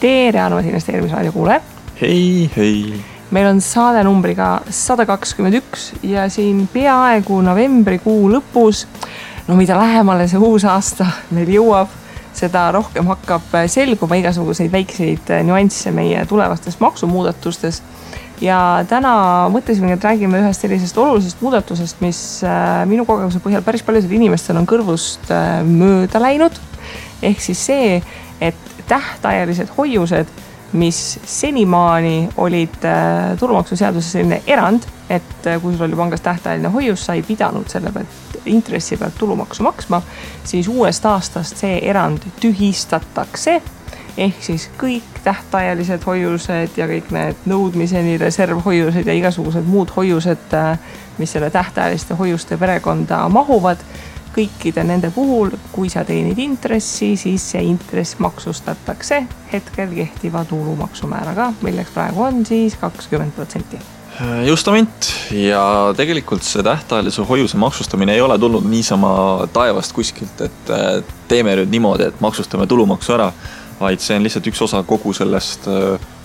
tere, armas investeerimisraadio kuulajad. Hei. Meil on saade numbriga 121 ja siin peaaegu novembrikuu lõpus, mida lähemale see uus aasta meil jõuab, seda rohkem hakkab selguma igasuguseid väikseid nüansse meie tulevastes maksumuudatustes. Ja täna mõtlesime, et räägime ühest sellisest olulisest muudatusest, mis minu kogemuse põhjal päris paljudel inimestel on kõrvust mööda läinud. Ehk siis see, et tähtajalised hoiused, mis senimaani olid tulumaksuseaduses selline erand, et kui sul oli pangas tähtajaline hoius, sa ei pidanud selle pealt intressi pealt tulumaksu maksma, siis uuest aastast see erand tühistatakse. Ehk siis kõik tähtajalised hoiused ja kõik need nõudmiseni reservhoiused ja igasugused muud hoiused, mis selle tähtajaliste hoiuste perekonda mahuvad, kõikide nende puhul, kui sa teenid intressi, siis see intress maksustatakse hetkel kehtiva tulumaksumääraga, milleks praegu on siis 20%. Justament, ja tegelikult see tähtajalise hoiuse maksustamine ei ole tulnud niisama taevast kuskilt, et teeme nüüd niimoodi, et maksustame tulumaksu ära, vaid see on lihtsalt üks osa kogu sellest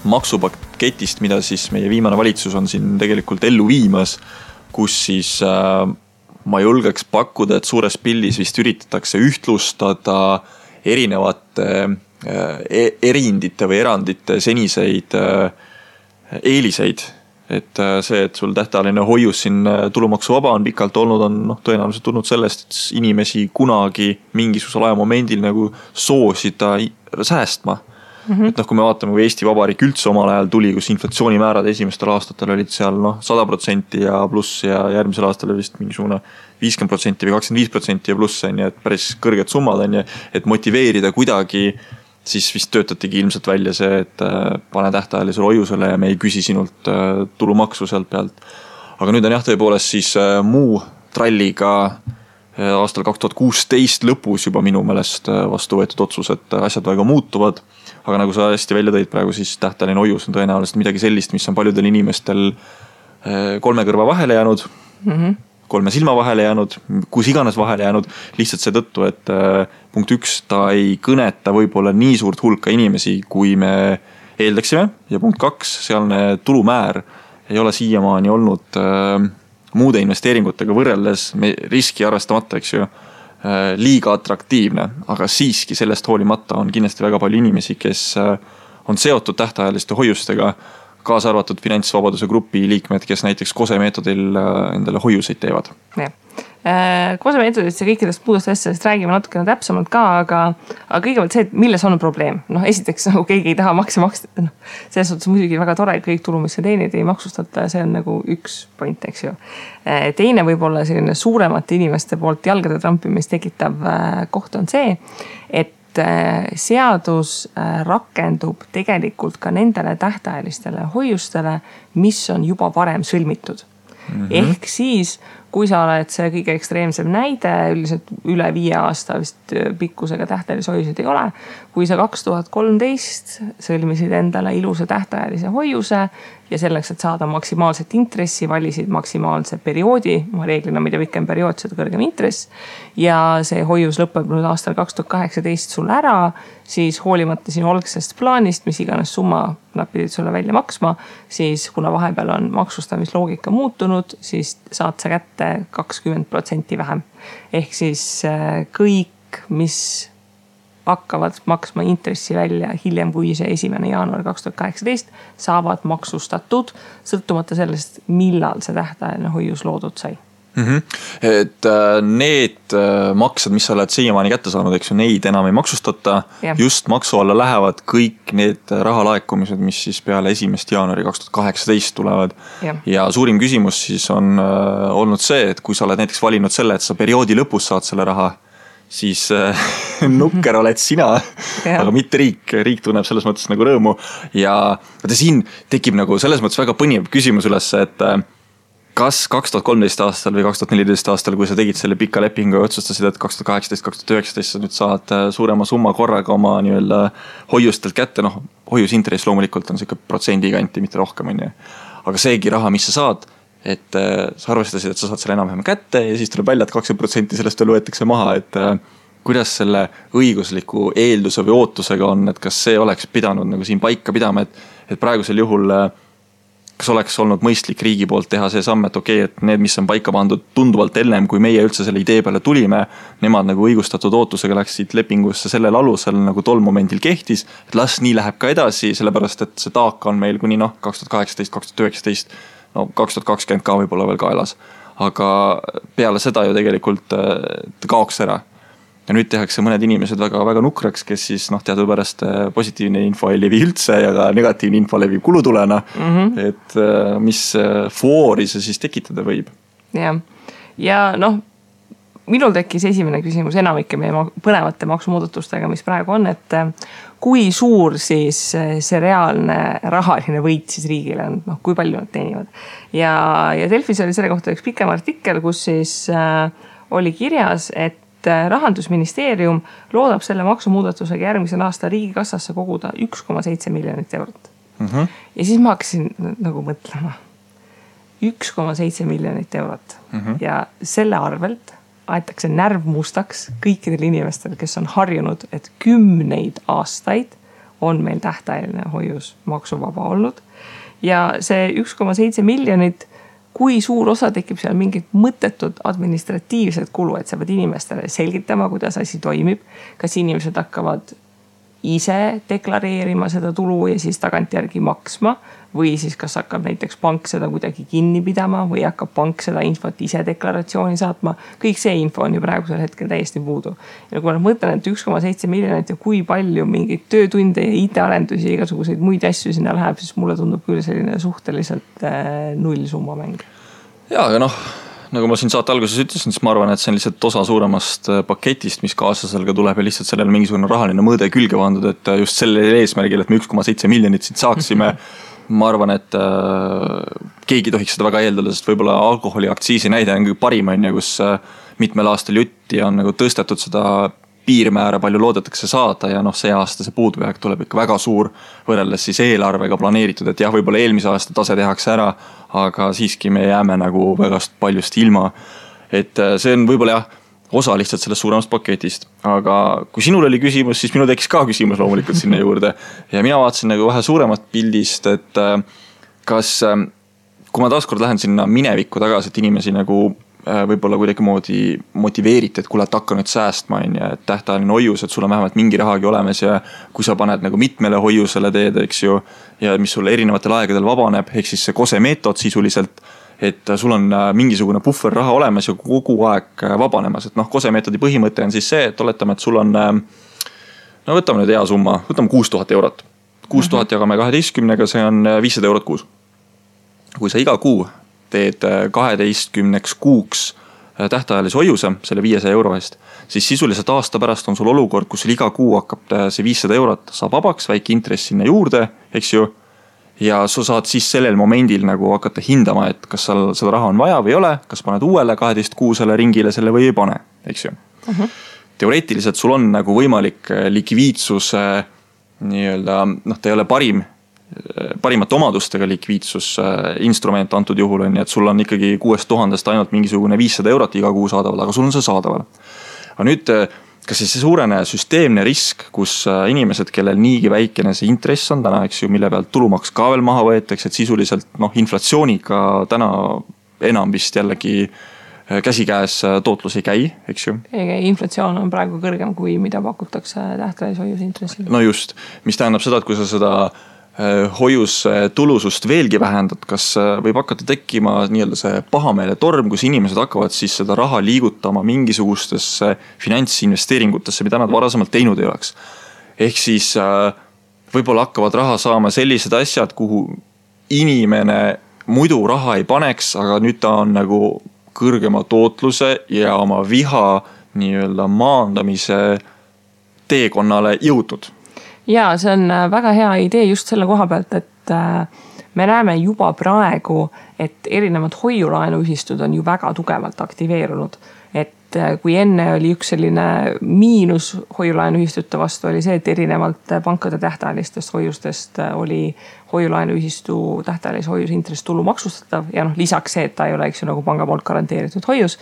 maksupaketist, mida siis meie viimane valitsus on siin tegelikult ellu viimas, kus siis ma julgeks pakkuda, et suures pildis vist üritatakse ühtlustada erinevate erindite või erandite seniseid eeliseid. Et see, et sul tähtajaline hoius siin tulumaksuvaba on pikalt olnud, on tõenäoliselt tulnud sellest, et inimesi kunagi mingisugusel ajamomendil nagu soosida säästma. Et kui me vaatame, kui Eesti Vabariik üldse omal ajal tuli, kus inflatsioonimäärad esimestel aastatel olid seal 100% ja pluss ja järgmisel aastal oli vist mingisugune 50% või 25% ja pluss, et päris kõrged summad on, et motiveerida kuidagi, siis vist töötatigi ilmselt välja see, et pane tähtajalisele hoiusele ja me ei küsi sinult tulumaksu sealt pealt. Aga nüüd on tõepoolest siis muu tralliga aastal 2016 lõpus juba minu meelest vastu võetud otsus, et asjad väga muutuvad. Aga nagu sa hästi välja tõid praegu, siis tähtajaline hoius on tõenäoliselt midagi sellist, mis on paljudel inimestel 3 kõrva vahele jäänud, 3 silma vahele jäänud, kus iganes vahele jäänud, lihtsalt see tõttu, et punkt 1, ta ei kõneta võib-olla nii suurt hulka inimesi, kui me eeldaksime, ja punkt 2, sealne tulumäär ei ole siiamaani olnud muude investeeringutega võrreldes riski arvestamata, eks ju, liiga atraktiivne, aga siiski sellest hoolimata on kindlasti väga palju inimesi, kes on seotud tähtajaliste hoiustega, kaasa arvatud finantsvabaduse grupi liikmed, kes näiteks KOSE meetodil endale hoiuseid teevad. KOSE meetodist ja kõikidest muudest asjadest räägime natukene täpsemalt ka, aga kõigepealt see, et milles on probleem. Esiteks, nagu keegi ei taha makse maksta. Selles suhtes muidugi väga tore, et kõik tulu, mis sa teenid, ei maksustata. See on nagu üks point, eks ju. Teine võib-olla selline suuremate inimeste poolt jalgade trampimist tekitav koht on see, et seadus rakendub tegelikult ka nendele tähtajalistele hoiustele, mis on juba varem sõlmitud. Ehk siis, kui sa oled see kõige ekstreemsem näide, üldiselt üle 5 aasta vist pikkusega tähtajalise hoiuseid ei ole. Kui sa 2013 sõlmisid endale ilusa tähtajalise hoiuse ja selleks, et saada maksimaalset intressi, valisid maksimaalse perioodi, reeglina mida pikem periood, seda kõrgem intress, ja see hoius lõpeb nüüd aastal 2018 sul ära, siis hoolimata sinu algsest plaanist, mis iganes summa nad pidid sulle välja maksma, siis kuna vahepeal on maksustamisloogika muutunud, siis saad sa kätte 20% vähem. Ehk siis kõik, mis hakkavad maksma intressi välja hiljem kui see 1. jaanuar 2018, saavad maksustatud, sõltumata sellest, millal see tähtajaline hoius loodud sai. Et need maksed, mis sa oled siiamaani kätte saanud, eks ju, neid enam ei maksustata. Just maksu alla lähevad kõik need rahalaekumised, mis siis peale 1. jaanuari 2018 tulevad. Ja suurim küsimus siis on olnud see, et kui sa oled näiteks valinud selle, et sa perioodi lõpus saad selle raha, siis nukker oled sina, aga mitte riik. Riik tunneb selles mõttes nagu rõõmu. Ja siin tekib nagu selles mõttes väga põnev küsimus üles, et kas 2013 aastal või 2014 aastal, kui sa tegid selle pika lepingu ja otsustasid, et 2018-2019 sa nüüd saad suurema summa korraga oma nii-öelda hoiustelt kätte, hoiusintress loomulikult on siuke protsendi kanti, mitte rohkem on ju. Aga seegi raha, mis sa saad, et sa arvestasid, et sa saad selle enam-vähem kätte ja siis tuleb välja, et 20% sellest veel võetakse maha, et kuidas selle õigusliku eelduse või ootusega on, et kas see oleks pidanud nagu siin paika pidama, et praegusel juhul kas oleks olnud mõistlik riigi poolt teha see samm, et okei, et need, mis on paika pandud tunduvalt ennem, kui meie üldse selle idee peale tulime, nemad nagu õigustatud ootusega läksid lepingusse sellel alusel nagu tol momendil kehtis, et las nii läheb ka edasi, sellepärast et see taak on meil kuni 2018, 2019, 2020 ka võib-olla veel kaelas. Aga peale seda ju tegelikult kaoks ära. Ja nüüd tehakse mõned inimesed väga, väga nukraks, kes siis teadupärast positiivne info ei levi üldse ja ka negatiivne info levib kulutulena, et mis foori see siis tekitada võib. Ja minul tekkis esimene küsimus enamike meie põnevate maksumuudatustega, mis praegu on, et kui suur siis see reaalne rahaline võit siis riigile on, kui palju nad teenivad. Ja Delfis oli selle kohta üks pikem artikkel, kus siis oli kirjas, et Rahandusministeerium loodab selle maksumuudatusega järgmisel aasta riigikassasse koguda 1,7 miljonit eurot. Ja siis ma hakkasin nagu mõtlema. 1,7 miljonit eurot. Ja selle arvelt aetakse närv mustaks kõikidel inimestel, kes on harjunud, et 10 aastaid on meil tähtajaline hoius maksuvaba olnud. Ja see 1,7 miljonit, kui suur osa tekib seal mingid mõttetud administratiivsed kulu, et sa pead inimestele selgitama, kuidas asi toimib. Kas inimesed hakkavad ise deklareerima seda tulu ja siis tagantjärgi maksma või siis kas hakkab näiteks pank seda kuidagi kinni pidama või hakkab pank seda infot ise deklaratsiooni saatma. Kõik see info on ju praegusel hetkel täiesti puudu. Ja kui ma mõtlen, et 1,7 miljonit ja kui palju mingeid töötunde ja IT-arendusi ja igasuguseid muid asju sinna läheb, siis mulle tundub küll selline suhteliselt nullsumma mäng. Ja, aga nagu ma siin saate alguses ütlesin, siis ma arvan, et see on lihtsalt osa suuremast paketist, mis kaaslasel ka tuleb ja lihtsalt sellel mingisugune rahaline mõõde külge pandud, et just sellel eesmärgil, et me 1,7 miljonit siit saaksime, ma arvan, et keegi tohiks seda väga eeldada, sest võib-olla alkoholiaktsiisi näide on kõige parim, kus mitmel aastal jutti on nagu tõstetud seda piirmäära, palju loodetakse saada ja see aasta see puudujääk tuleb ikka väga suur võrreldes siis eelarvega planeeritud, et jah, võib-olla eelmise aasta tase tehakse ära, aga siiski me jääme nagu väga paljust ilma. Et see on võib-olla osa lihtsalt sellest suuremast paketist, aga kui sinul oli küsimus, siis minul tekkis ka küsimus loomulikult sinna juurde ja mina vaatasin nagu vähe suuremat pildist, et kas, kui ma taaskord lähen sinna minevikku tagasi, et inimesi nagu võib-olla kuidagi moodi motiveeriti, et kuule, et hakka nüüd säästma, et tähtajaline hoius, et sul on vähemalt mingi rahagi olemas ja kui sa paned nagu mitmele hoiusele teed, eks ju, ja mis sulle erinevatel aegadel vabaneb, ehk siis see kose meetod sisuliselt, et sul on mingisugune puhver raha olemas ja kogu aeg vabanemas, et kose meetodi põhimõte on siis see, et oletame, et sul on, võtame nüüd hea summa, võtame 6000 eurot. 6000 jagame 12-ga, see on 500 eurot kuus. Kui sa iga kuu teed 12 kuuks tähtajalise hoiuse selle 500 euro eest, siis sisuliselt aasta pärast on sul olukord, kus iga kuu hakkab see 500 eurot saab vabaks, väike intress sinna juurde, eks ju, ja sa saad siis sellel momendil nagu hakata hindama, et kas seda raha on vaja või ei ole, kas paned uuele 12 kuusele ringile selle või ei pane, eks ju. Teoreetiliselt sul on nagu võimalik likviidsuse nii-öelda, ta ei ole parimate omadustega likviidsusinstrument antud juhul on, et sul on ikkagi 6000 ainult mingisugune 500 eurot iga kuu saadaval, aga sul on see saadaval. Aga nüüd, kas see suurene süsteemne risk, kus inimesed, kellel niigi väikene see intress on täna, eks ju, mille pealt tulumaks ka veel maha võetakse, et sisuliselt inflatsiooniga täna enam vist jällegi käsikäes tootlus ei käi, eks ju. Inflatsioon on praegu kõrgem kui mida pakutakse tähtajalise hoiuse intressil. No just, mis tähendab seda, et kui sa seda hoius tulusust veelgi vähendad, kas võib hakata tekkima nii-öelda see pahameele torm, kus inimesed hakkavad siis seda raha liigutama mingisugustesse finantsinvesteeringutesse, mida nad varasemalt teinud ei oleks. Ehk siis võib-olla hakkavad raha saama sellised asjad, kuhu inimene muidu raha ei paneks, aga nüüd ta on nagu kõrgema tootluse ja oma viha nii-öelda maandamise teekonnale jõudnud. Ja see on väga hea idee just selle koha pealt, et me näeme juba praegu, et erinevad hoiulaenuühistud on ju väga tugevalt aktiveerunud. Et kui enne oli üks selline miinus hoiulaenuühistute vastu oli see, et erinevalt pankade tähtajalistest hoiustest oli hoiulaenuühistu tähtajalise hoiuse intress tulu maksustatav ja lisaks see, et ta ei ole nagu panga poolt garanteeritud hoius.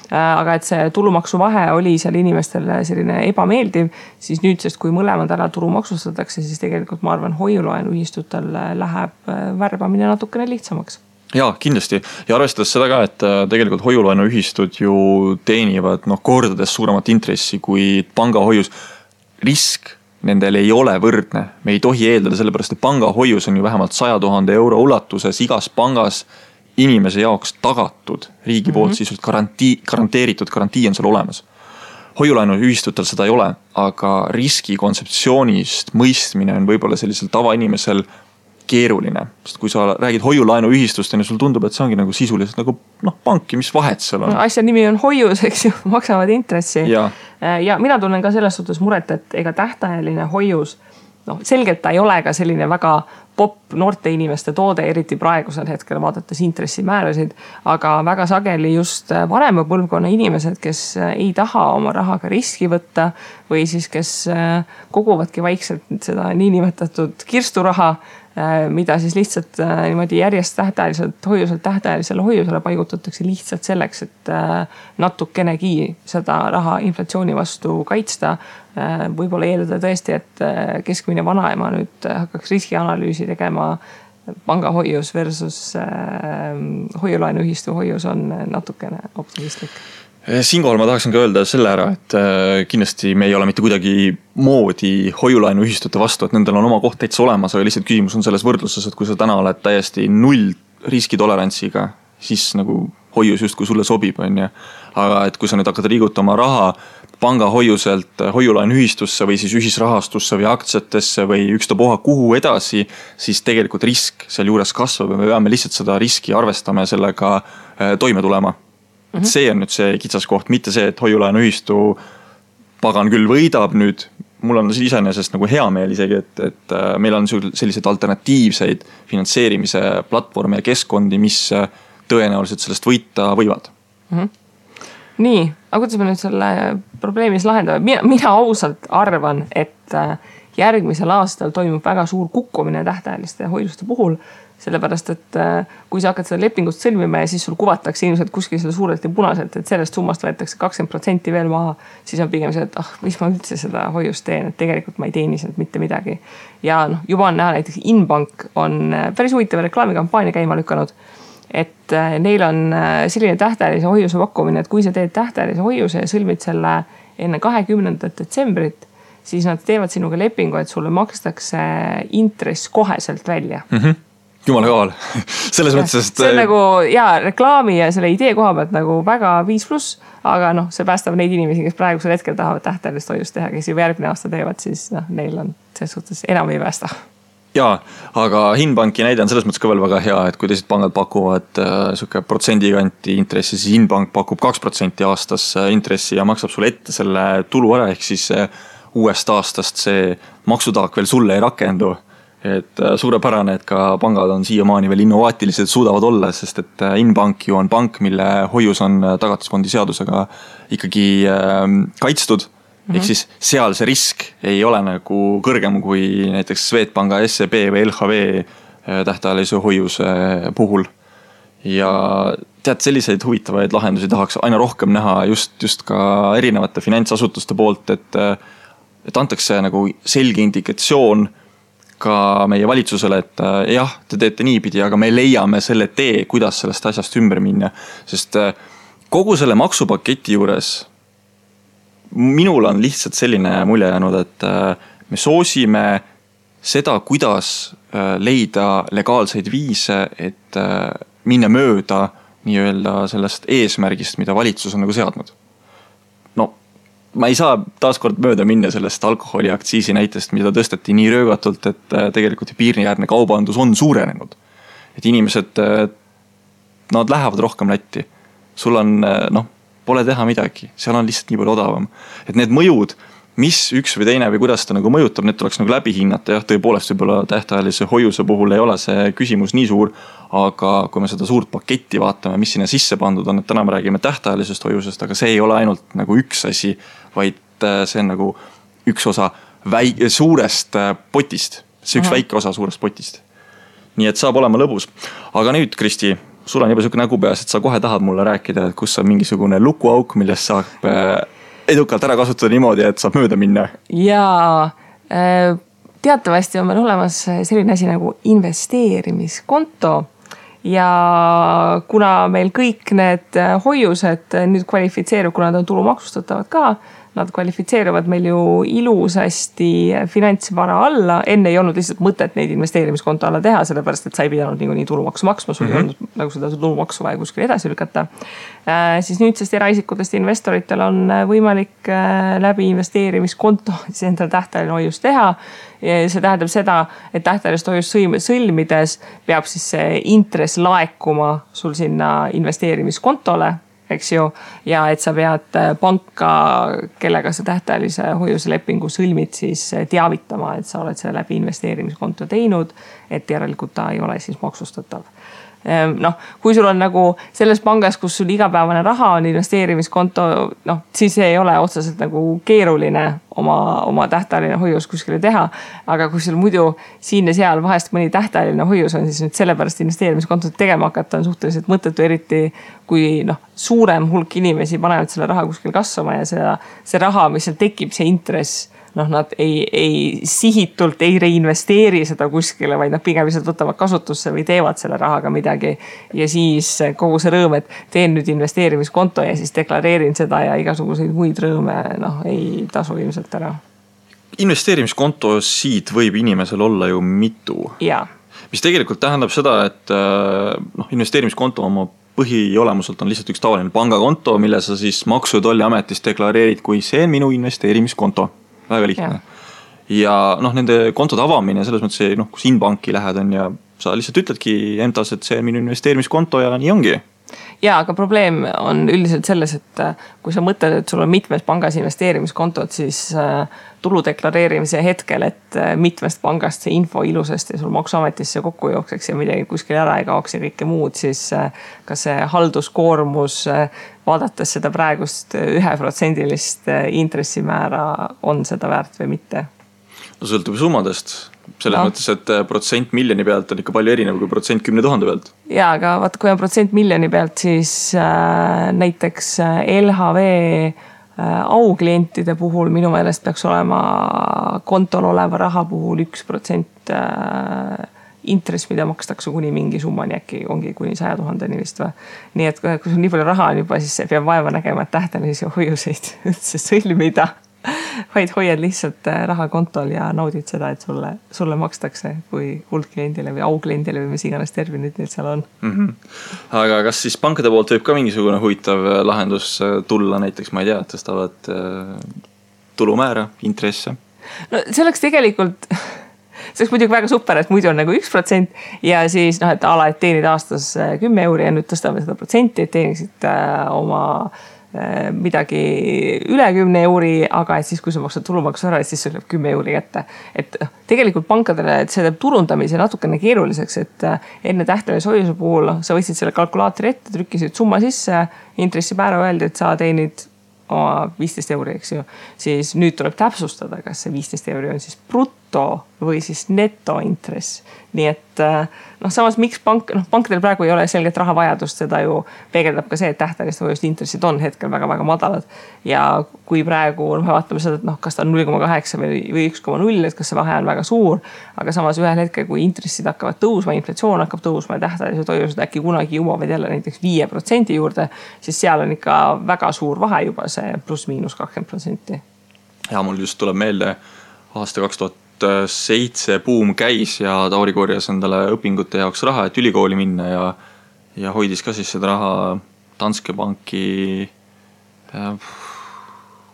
Aga et see tulumaksu vahe oli seal inimestele selline ebameeldiv, siis nüüdsest, kui mõlemad ära tulu maksustatakse, siis tegelikult ma arvan, hoiulaenuühistutel läheb värbamine natukene lihtsamaks. Jaa, kindlasti. Ja arvestades seda ka, et tegelikult hoiulaenuühistud ju teenivad kordades suuremat intressi kui pangahoius. Risk nendel ei ole võrdne. Me ei tohi eeldada sellepärast, et pangahoius on ju vähemalt 100 000 euro ulatuses igas pangas inimese jaoks tagatud riigi poolt sisult garanteeritud garantii on seal olemas. Hoiulaenuühistutel seda ei ole, aga riski kontseptsioonist mõistmine on võib-olla sellisel tavainimesel keeruline. Sest kui sa räägid hoiulaenuühistust, ja sul tundub, et see ongi nagu sisuliselt nagu panki, mis vahet seal on. Asja nimi on hoius, eks ju, maksavad intressi. Ja mina tunnen ka selles suhtes muret, et ega tähtajaline hoius, selgelt ta ei ole ka selline väga popp noorte inimeste toode, eriti praegusel hetkel vaadates intressimäärasid, aga väga sageli just vanema põlvkonna inimesed, kes ei taha oma rahaga riski võtta või siis kes koguvadki vaikselt seda niinimetatud kirsturaha, mida siis lihtsalt niimoodi järjest tähtajalisele hoiusele paigutatakse lihtsalt selleks, et natukenegi seda raha inflatsiooni vastu kaitsta. Võib-olla eeldada tõesti, et keskmine vanaema nüüd hakkaks riskianalüüsi tegema pangahoius versus hoiulaenuühistu hoius on natukene optimistlik. Siinkohal ma tahaksin ka öelda selle ära, et kindlasti me ei ole mitte kuidagi moodi hoiulaenuühistute vastu, et nendel on oma koht täitsa olemas, aga lihtsalt küsimus on selles võrdluses, et kui sa täna oled täiesti null riskitolerantsiga, siis nagu hoius just kui sulle sobib, on ja. Aga et kui sa nüüd hakkad liigutama raha pangahoiuselt hoiulaenuühistusse või siis ühisrahastusse või aktsiatesse või ükstapuha kuhu edasi, siis tegelikult risk seal juures kasvab ja me peame lihtsalt seda riski arvestama ja sellega toime tulema. See on nüüd see kitsaskoht, mitte see, et hoiulaenuühistu pagan küll võidab nüüd. Mul on iseenesest nagu hea meel isegi, et meil on sellised alternatiivseid finantseerimise platvorme ja keskkondi, mis tõenäoliselt sellest võita võivad. Nii, aga kuidas me nüüd selle probleemis lahendame? Mina ausalt arvan, et järgmisel aastal toimub väga suur kukkumine tähtajaliste hoiuste puhul, sellepärast, et kui sa hakkad seda lepingust sõlmima ja siis sul kuvatakse ilmselt kuskil selle suurelt ja punaselt, et sellest summast võetakse 20% veel maha, siis on pigem see, et mis ma üldse seda hoiust teen, et tegelikult ma ei teeni sealt mitte midagi. Ja juba on näha, näiteks Inbank on päris huvitava reklaamikampaania käima lükanud, et neil on selline tähtajalise hoiuse pakkumine, et kui sa teed tähtajalise hoiuse ja sõlmid selle enne 20. detsembrit, siis nad teevad sinuga lepingu, et sulle makstakse intress koheselt välja. Jumala kaval. Selles mõttes, et see on nagu reklaami ja selle idee koha pealt nagu väga 5+, aga see päästab neid inimesi, kes praegusel hetkel tahavad tähtajalist hoiust teha, kes juba järgmine aasta teevad, siis neil on selles suhtes enam ei päästa. Jaa, aga Inbanki näide on selles mõttes ka veel väga hea, et kui teised pangad pakuvad suke protsendikanti intressi, siis Inbank pakub 2% aastas intressi ja maksab sulle ette selle tulu ära, ehk siis uuest aastast see maksutaak veel sulle ei rakendu. Et suurepärane, et ka pangad on siiamaani veel innovaatilised suudavad olla, sest et Inbank ju on pank, mille hoius on tagatisfondi seadusega ikkagi kaitstud. Ehk siis seal see risk ei ole nagu kõrgem kui näiteks Swedbanka, SEB või LHV tähtajalise hoiuse puhul. Ja tead, selliseid huvitavaid lahendusi tahaks aina rohkem näha just ka erinevate finantsasutuste poolt, et antakse nagu selge indikatsioon ka meie valitsusele, et jah, te teete niipidi, aga me leiame selle tee, kuidas sellest asjast ümber minna. Sest kogu selle maksupaketi juures minul on lihtsalt selline mulje jäänud, et me soosime seda, kuidas leida legaalseid viise, et minna mööda nii-öelda sellest eesmärgist, mida valitsus on nagu seadnud. Ma ei saa taaskord mööda minna sellest alkoholiaktsiisi näitest, mida tõsteti nii röögatult, et tegelikult piiriäärne kaubandus on suurenenud. Et inimesed, nad lähevad rohkem Lätti. Sul on, pole teha midagi, seal on lihtsalt nii palju odavam. Et need mõjud, mis üks või teine või kuidas ta nagu mõjutab, need tuleks nagu läbi hinnata. Jah, tõepoolest võib-olla tähtajalise hoiuse puhul ei ole see küsimus nii suur, aga kui me seda suurt paketti vaatame, mis sinna sisse pandud on, et täna me räägime tähtajalisest hoiusest, aga see ei ole ainult nagu üks asi, vaid see on nagu üks osa suurest potist. See üks väike osa suurest potist. Nii et saab olema lõbus. Aga nüüd, Kristi, sul on juba selline nägu peas, et sa kohe tahad mulle rääkida, et kus on mingisugune lukuauk, millest saab edukalt ära kasutada niimoodi, et saab mööda minna. Jaa, teatavasti on meil olemas selline asi nagu investeerimiskonto ja kuna meil kõik need hoiused nüüd kvalifitseerub, kuna nad on tulumaksustatavad ka, nad kvalifitseeruvad meil ju ilusasti finantsvara alla. Enne ei olnud lihtsalt mõtet neid investeerimiskonto alla teha, sellepärast et sa ei pidanud nii tulumaksu maksma, sul ei olnud nagu seda tulumaksu vaja kuskil edasi lükata. Siis nüüdsest eraisikutest investoritel on võimalik läbi investeerimiskonto endale tähtajaline hoius teha. See tähendab seda, et tähtajalist hoiust sõlmides peab siis see intress laekuma sul sinna investeerimiskontole, eks ju, ja et sa pead panka, kellega sa tähtajalise hoiuse lepingu sõlmid, siis teavitama, et sa oled selle läbi investeerimiskonto teinud, et järelikult ta ei ole siis maksustatav. Kui sul on nagu selles pangas, kus sul igapäevane raha on investeerimiskonto, siis ei ole otseselt nagu keeruline oma tähtajaline hoius kuskile teha, aga kui sul muidu siin ja seal vahest mõni tähtajaline hoius on, siis nüüd sellepärast investeerimiskontot tegema hakata on suhteliselt mõttetu, eriti kui suurem hulk inimesi panevad selle raha kuskil kasvama ja see raha, mis seal tekib, see intress, nad ei sihitult ei reinvesteeri seda kuskile, vaid nad pigem lihtsalt võtavad kasutusse või teevad selle rahaga midagi. Ja siis kogu see rõõm, et teen nüüd investeerimiskonto ja siis deklareerin seda ja igasuguseid muid rõõme, ei tasu ilmselt ära. Investeerimiskonto siit võib inimesel olla ju mitu. Ja. Mis tegelikult tähendab seda, et investeerimiskonto oma põhiolemuselt on lihtsalt üks tavaline pangakonto, mille sa siis Maksu- ja Tolliametis deklareerid, kui see on minu investeerimiskonto. Väga lihtne. Ja nende kontode avamine selles mõttes, kus Inbanki lähed on ja sa lihtsalt ütledki endas, et see on minu investeerimiskonto ja nii ongi. Ja, aga probleem on üldiselt selles, et kui sa mõtled, et sul on mitmes pangas investeerimiskontot, siis tulu deklareerimise hetkel, et mitmest pangast see info ilusasti sul Maksuametisse kokku jookseks ja midagi kuskil ära ei kaoks ja kõike muud, siis kas see halduskoormus vaadates seda praegust 1% intressimäära on seda väärt või mitte? Sõltub summadest. Selles mõttes, et protsent miljoni pealt on ikka palju erinev kui protsent 10 000 pealt. Ja, aga vaata, kui on protsent miljoni pealt, siis näiteks LHV auklientide puhul minu meelest peaks olema kontol oleva raha puhul 1% intress, mida makstakse kuni mingi summani, äkki ongi kuni 100 000 vist või. Nii et kui sul nii palju raha on juba, siis peab vaeva nägema, et tähtajalisi hoiuseid üldse sõlmida. Vaid hoiad lihtsalt raha kontol ja naudid seda, et sulle makstakse kui kuldkliendile või aukliendile või mis iganes terminid neil seal on. Aga kas siis pankade poolt võib ka mingisugune huvitav lahendus tulla, näiteks ma ei tea, tõstavad tulumäära, intresse? See oleks tegelikult, see oleks muidugi väga super, et muidu on nagu 1% ja siis, et ala, et teenid aastas 10 € ja nüüd tõstame seda protsenti, et teeniksid oma midagi üle 10 €, aga et siis, kui sa maksad tulumaksu ära, siis see läheb 10 € kätte. Et tegelikult pankadele, et see teeb turundamise natukene keeruliseks, et enne tähtajalise hoiuse puhul sa võtsid selle kalkulaatori ette, trükkisid summa sisse, intressimäära öeldi, et sa teenid oma 15 €, eks ju. Siis nüüd tuleb täpsustada, kas see 15 € on siis bruto või siis netointress. Nii et samas miks pankadel praegu ei ole selget rahavajadust, seda ju peegeldab ka see, et tähtajaliste hoiuste intressid on hetkel väga-väga madalad. Ja kui praegu me vaatame seda, et kas ta on 0,8 või 1,0, et kas see vahe on väga suur, aga samas ühel hetkel, kui intressid hakkavad tõusma, inflatsioon hakkab tõusma ja tähtajalised hoiused äkki kunagi jõuavad jälle näiteks 5% juurde, siis seal on ikka väga suur vahe juba see pluss-miinus 20%. Ja mul just tuleb meelde aasta 2007 buum käis ja Tauri korjas endale õpingute jaoks raha, et ülikooli minna ja hoidis ka siis seda raha Danske Banki,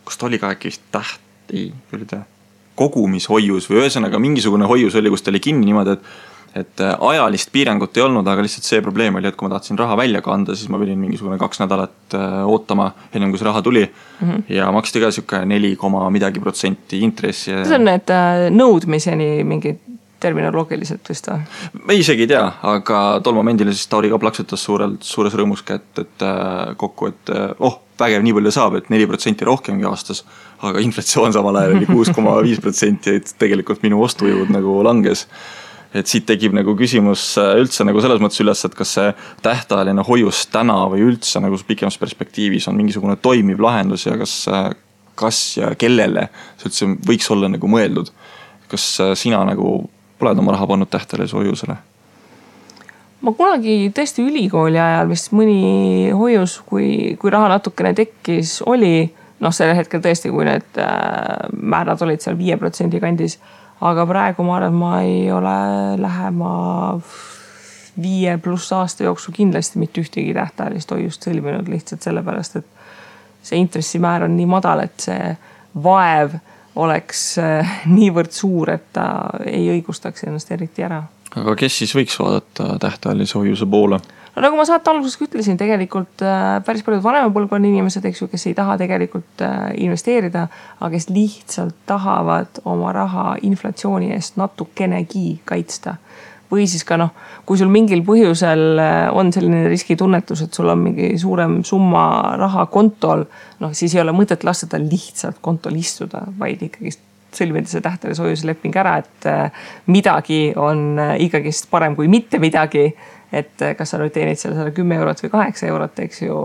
kas ta oli ka äkki kogumishoius või ühesõnaga mingisugune hoius oli, kus ta oli kinni niimoodi, et ajalist piirangut ei olnud, aga lihtsalt see probleem oli, et kui ma tahtsin raha välja kanda, siis ma pidin mingisugune 2 nädalat ootama enne kui see raha tuli ja maksti ka siuke 4,midagi% intressi. See on need nõudmiseni mingid terminoloogiliselt vist või? Ma isegi ei tea, aga tol momendil siis Tauri ka plaksutas suures rõõmus kätt, et kokku, et vägev nii palju saab, et 4% rohkemgi aastas, aga inflatsioon samal ajal oli 6,5%, et tegelikult minu ostujõud nagu langes. Et siit tekib nagu küsimus üldse nagu selles mõttes üles, et kas see tähtajaline hoius täna või üldse nagu pikemas perspektiivis on mingisugune toimiv lahendus ja kas ja kellele see üldse võiks olla nagu mõeldud. Kas sina nagu oled oma raha pannud tähtajalise hoiusele? Ma kunagi tõesti ülikooli ajal vist mõni hoius, kui raha natukene tekkis, oli selle hetkel tõesti, kui need määrad olid seal 5% kandis. Aga praegu ma arvan, et ma ei ole lähema 5+ aasta jooksul kindlasti mitte ühtegi tähtajalist hoiust sõlminud lihtsalt sellepärast, et see intressimäär on nii madal, et see vaev oleks niivõrd suur, et ta ei õigustaks ennast eriti ära. Aga kes siis võiks vaadata tähtajalise hoiuse poole? No nagu ma saate alguses ütlesin, tegelikult päris paljud vanema põlvkonna inimesed, kes ei taha tegelikult investeerida, aga kes lihtsalt tahavad oma raha inflatsiooni eest natukenegi kaitsta. Või siis ka kui sul mingil põhjusel on selline riskitunnetus, et sul on mingi suurem summa raha kontol, siis ei ole mõtet lasta tal lihtsalt kontol istuda, vaid ikkagi sõlmida see tähtajalise hoiuse leping ära, et midagi on ikkagi parem kui mitte midagi. Et kas sa nüüd teenid selle 10 eurot või 8 eurot, eks ju,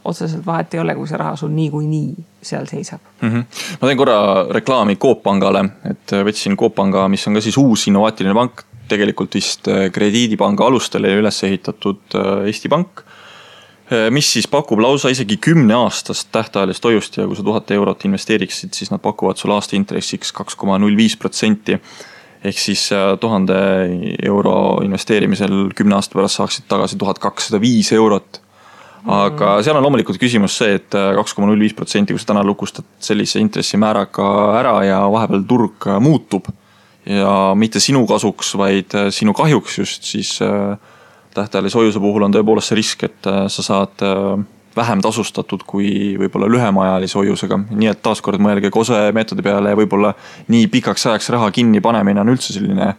otseselt vahet ei ole, kui see raha sul nii seal seisab. Ma teen korra reklaami Coop Pangale, et võtsin Coop Panga, mis on ka siis uus innovaatiline pank, tegelikult vist krediidipanga alustele üles ehitatud Eesti Pank, mis siis pakub lausa isegi 10-aastast tähtajalist hoiust ja kui sa 1000 eurot investeeriksid, siis nad pakuvad sul aasta intressiks 2,05%. Ehk siis 1000 euro investeerimisel 10 aasta pärast saaksid tagasi 1205 eurot. Aga seal on loomulikult küsimus see, et 2,05%, kui sa täna lukustad sellise intressimääraga ära ja vahepeal turg muutub ja mitte sinu kasuks, vaid sinu kahjuks just, siis tähtajalise hoiuse puhul on tõepoolest see risk, et sa saad vähem tasustatud kui võib-olla lühemaajalise hoiusega. Nii et taaskord mõelge kose meetodi peale ja võib-olla nii pikaks ajaks raha kinni panemine on üldse selline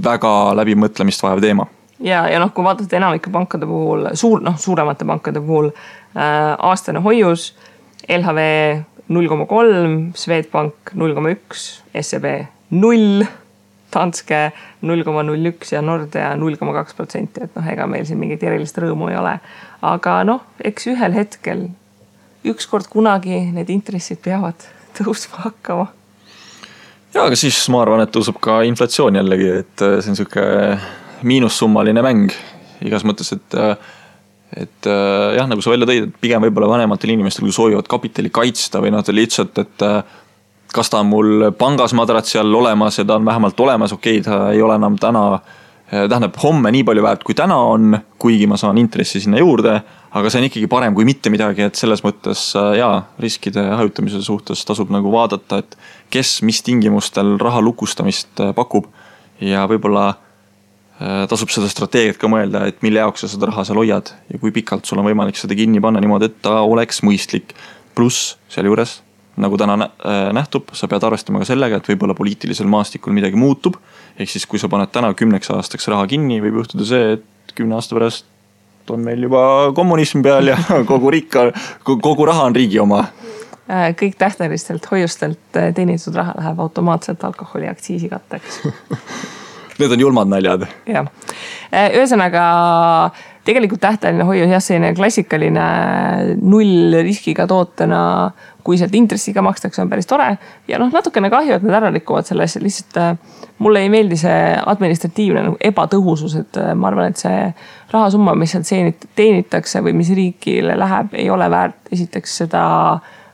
väga läbimõtlemist vajav teema. Ja kui vaadata enamike pankade puhul, suuremate pankade puhul aastane hoius, LHV 0,3, Swedbank 0,1, SEB 0, Danske 0,01 ja Nordea 0,2%, et ega meil siin mingit erilist rõõmu ei ole. Aga eks ühel hetkel, ükskord kunagi need intressid peavad tõusma hakkama. Ja, aga siis ma arvan, et tõuseb ka inflatsioon jällegi, et see on siuke miinussummaline mäng igas mõttes, et jah, nagu sa välja tõid, et pigem võib-olla vanematel inimestel, kui soovivad kapitali kaitsta või lihtsalt, et kas ta on mul pangas madratsi all olemas ja ta on vähemalt olemas, okei, ta ei ole enam tähendab homme nii palju väärt kui täna on, kuigi ma saan intressi sinna juurde, aga see on ikkagi parem kui mitte midagi, et selles mõttes riskide hajutamise suhtes tasub nagu vaadata, et kes mis tingimustel raha lukustamist pakub ja võib-olla tasub seda strateegiat ka mõelda, et mille jaoks sa seda raha seal hoiad ja kui pikalt sul on võimalik seda kinni panna niimoodi, et ta oleks mõistlik. Pluss seal juures, nagu täna nähtub, sa pead arvestama ka sellega, et võib-olla poliitilisel maastikul midagi muutub. Ehk siis, kui sa paned täna 10 aastaks raha kinni, võib juhtuda see, et 10 aasta pärast on meil juba kommunism peal ja kogu raha on riigi oma. Kõik tähtajalistelt hoiustelt teenitud raha läheb automaatselt alkoholiaktsiisi katteks. Need on julmad naljad. Ja. Ühesõnaga, tegelikult tähtajaline hoius selline klassikaline null riskiga tootena, kui sealt intressiga makstakse, on päris tore. Ja natukene kahju, et nad ära rikuvad selles. Lihtsalt mulle ei meeldi see administratiivne ebatõhusus, et ma arvan, et see rahasumma, mis sealt teenitakse või mis riigile läheb, ei ole väärt esiteks seda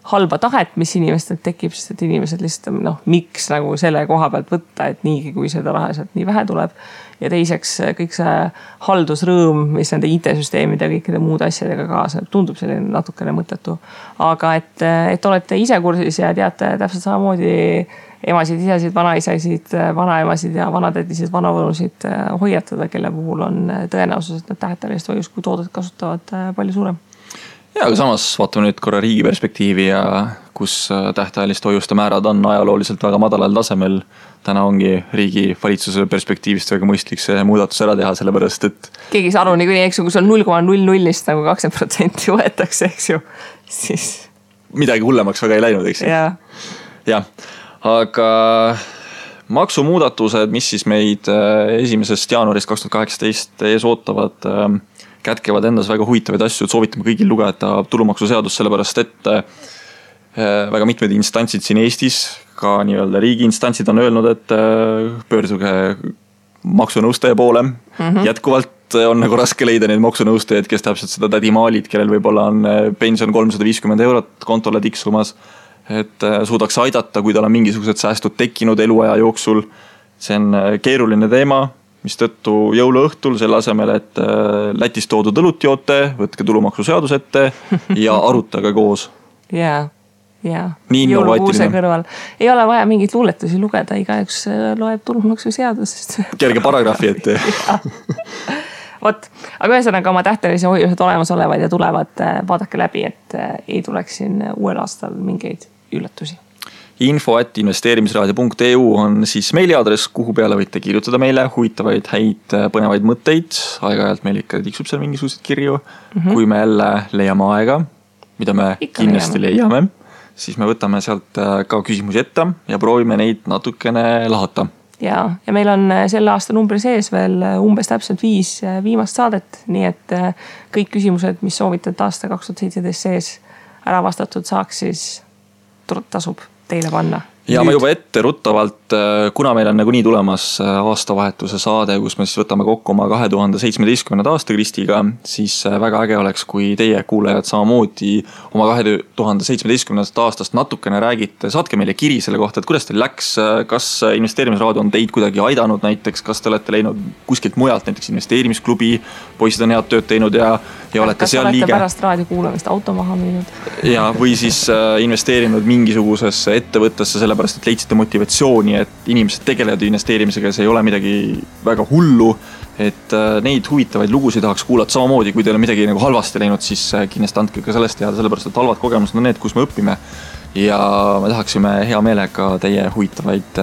halba tahet, mis inimestel tekib, sest et inimesed lihtsalt miks nagu selle koha pealt võtta, et niigi, kui seda raha sealt nii vähe tuleb. Ja teiseks kõik see haldusrõõm, mis nende IT-süsteemide ja kõikide muude asjadega kaasa, tundub selline natukene mõttetu. Aga et olete ise kursis ja teate täpselt samamoodi emasid, isasid, vanaisasid, vanaemasid ja vanatädisid, vanavõnusid hoiatada, kelle puhul on tõenäosus, et nad tähtelist hoius, kui toodet kasutavad palju suurem. Ja, aga samas vaatame nüüd korra riigi perspektiivi ja kus tähtajaliste hoiuste määrad on ajalooliselt väga madalal tasemel. Täna ongi riigi valitsuse perspektiivist väga mõistlik see muudatus ära teha, sellepärast, et keegi saa aru niikuinii, eks ju, kui sul 0,00-st nagu 20% võetakse, eks ju, siis midagi hullemaks väga ei läinud, eks ju. Jah, aga maksumuudatused, mis siis meid 1. jaanuarist 2018 ees ootavad, kätkevad endas väga huvitavaid asju, et soovitame kõigil lugeda tulumaksuseadust, sellepärast et väga mitmed instantsid siin Eestis, ka nii-öelda riigi instantsid on öelnud, et pöörduge maksunõustaja poole. Jätkuvalt on nagu raske leida neid maksunõustajaid, kes täpselt seda tädimaalid, kellel võib-olla on pension 350 € kontole tiksumas, et suudaks aidata, kui tal on mingisugused säästud tekkinud eluaja jooksul. See on keeruline teema, mis tõttu jõuluõhtul selle asemel, et Lätist toodud õlut joote, võtke tulumaksuseadus ette ja arutage koos. Jõulukuuse kõrval. Ei ole vaja mingit luuletusi lugeda, igaüks loeb tulumaksuseadusest. Kerge paragrahvi ette. Vot, aga ühesõnaga oma tähtelise hoiused olemas olevad ja tulevad, vaadake läbi, et ei tuleks siin uuel aastal mingeid üllatusi. info@investeerimisraadio.eu on siis meiliaadress, kuhu peale võite kirjutada meile huvitavaid, häid, põnevaid mõtteid. Aeg-ajalt meil ikka tiksub seal mingisugused kirju. Kui me jälle leiame aega, mida me ikka kindlasti leiame, siis me võtame sealt ka küsimusi ette ja proovime neid natukene lahata. Ja meil on selle aasta numbri sees veel umbes täpselt 5 viimast saadet, nii et kõik küsimused, mis soovitate aasta 2017 sees ära vastatud saaks, siis tasub teile panna. Ja ma juba ette ruttavalt, kuna meil on nagunii tulemas aastavahetuse saade, kus me siis võtame kokku oma 2017. aasta Kristiga, siis väga äge oleks, kui teie kuulajad samamoodi oma 2017. aastast natukene räägite. Saatke meile kiri selle kohta, et kuidas teil läks, kas investeerimisraadio on teid kuidagi aidanud näiteks, kas te olete leidnud kuskilt mujalt, näiteks investeerimisklubi, poisid on head tööd teinud ja olete seal liige. Kas olete pärast raadio kuulamist auto maha müünud? Ja, või siis investeerinud mingisugusesse ettevõttesse sellepärast, et leidsite motivatsiooni, et inimesed tegelevad investeerimisega ja see ei ole midagi väga hullu, et neid huvitavaid lugusid tahaks kuulata samamoodi, kui teil on midagi nagu halvasti läinud, siis kindlasti andke ka sellest teada, sellepärast et halvad kogemused on need, kus me õpime ja me tahaksime hea meelega teie huvitavaid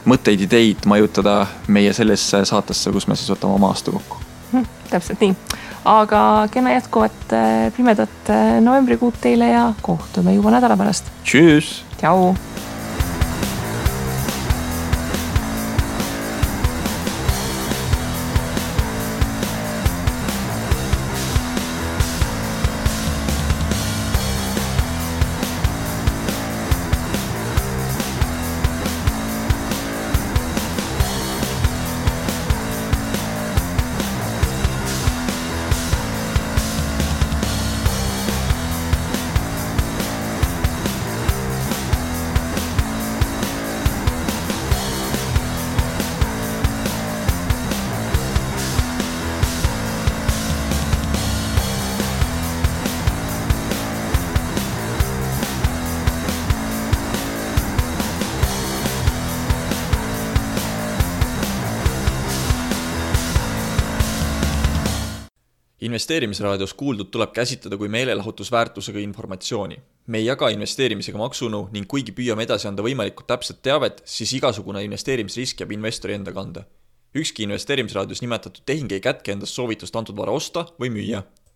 mõtteid, ideid majutada meie sellesse saatesse, kus me siis võtame oma aasta kokku. Täpselt nii. Aga kena jätkuvat pimedat novembrikuud teile ja kohtume juba nädala pärast. Tšüss! Tšau! Investeerimisraadios kuuldud tuleb käsitleda kui meelelahutusväärtusega informatsiooni. Me ei jaga investeerimisega maksunu ning kuigi püüame edasi anda võimalikult täpset teavet, siis igasugune investeerimisrisk jääb investori enda kanda. Ükski investeerimisraadios nimetatud tehing ei kätke endast soovitust antud vara osta või müüa.